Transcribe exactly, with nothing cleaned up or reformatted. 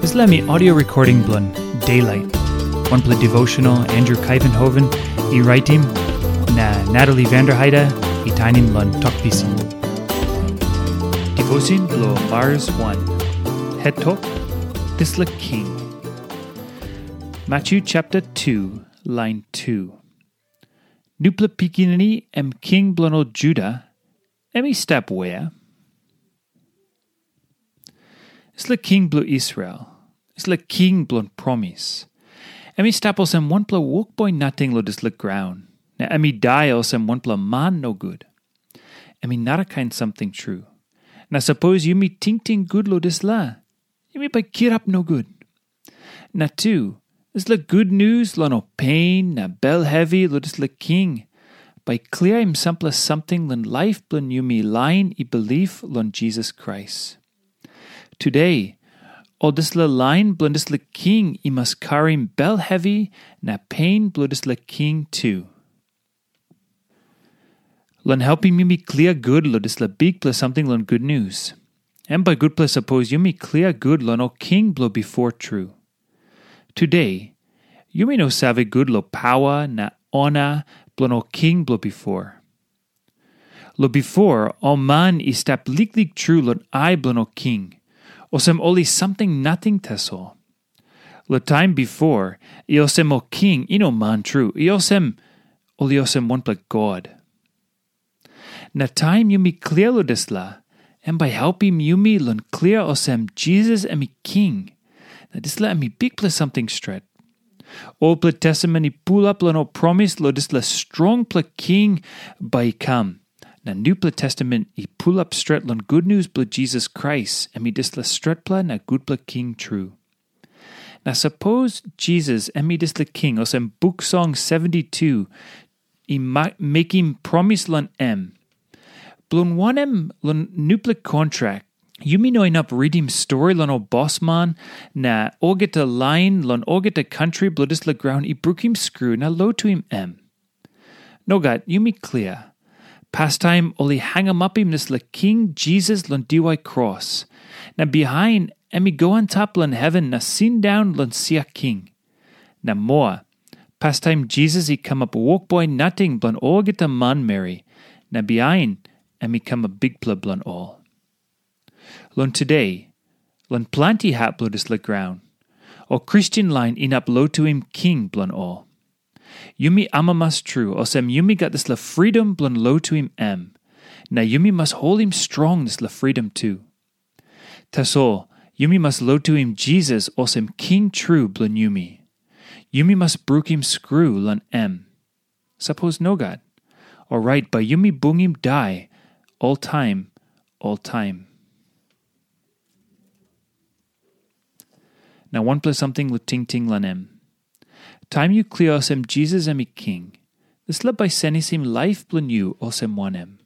Dispela mi audio recording bilong Daylight, wanpela devotional Andrew Kaivenhoven i raitim, na Natalie Vanderheide i tainim long Tok Pisin. Devotion bilong Mars wan. Het tok, dispela king. Matthew chapter two, line two. Nupela pikinini em king bilong ol Juda, em i stap wea? Dispela king bilong Israel, dispela king bilong promis, em i stap olsem wanpela wokboi nating long dispela graun, na em i dai olsem wanpela man nogut. Em i narakain samting tru. Na sapos yumi tingting gut long dispela, yumi bai kirap nogut. Na tu, dispela gutnius long ol pein na bel hevi long dispela king bai kliaim sampela samting long laip bilong yumi lain i bilip long Jisas Krais. Tude, ol dispela lain bilong dispela king i mas karim bel hevi na pein bilong dispela king tu. Long helpim yumi klia gut long dispela bikpela samting long gutnius, em bai gutpela sapos yumi klia gut long ol king bilong bipo tru. Tude, yumi no save gut long pawa na ona bilong ol king bilong bipo. Long bipo, ol man i stap liklik tru long ai bilong ol king, olsem ol i samting nating tasol. Long taim bipo, i olsem ol king i no man tru, i olsem ol i olsem wanpela god. Na taim yumi klia long dispela, em bai helpim yumi long klia olsem Jisas em i king. Na dispela em i bikpela samting stret. Olpela testament i pulap long ol promis long dispela strongpela king bai i kam. Na nupela testament i pulap stret long gutnius bilong Jisas Krais, em i dispela stretpela na gutpela king tru. Na sapos Jisas em i dispela king olsem buk song seventy-two i mekim promis long em. Bilong wanem long nupela kontrak, yumi no inap ritim stori long ol bosman na olgeta lain long olgeta kantri bilong dispela graun i brukim skru na lotuim em? Nogat, yumi klia. Pastaim ol i hangamapim dispela King Jisas long diwai kros, na bihain em i go antap long heven na sindaun long sia king. Na moa, pastaim Jisas i kamap wokboi nating bilong olgeta manmeri, na bihain em i kamap bikpela bilong ol. Long tude, long planti hap bilong dispela graun, ol Kristen lain inap lotuim king bilong ol. Yumi amamas tru, olsem yumi gat dispela fridom bilong lotuim em, na yumi mas holim strong dispela fridom tu. Tasol, yumi mas lotuim Jisas olsem King tru bilong yumi. Yumi mas brukim skru long em. Sapos nogat, orait bai yumi bungim dai oltaim, oltaim. Na wanpela samting long tingting long em. Taim yu klia olsem Jisas em i king, dispela bai senisim laip bilong yu olsem wanem?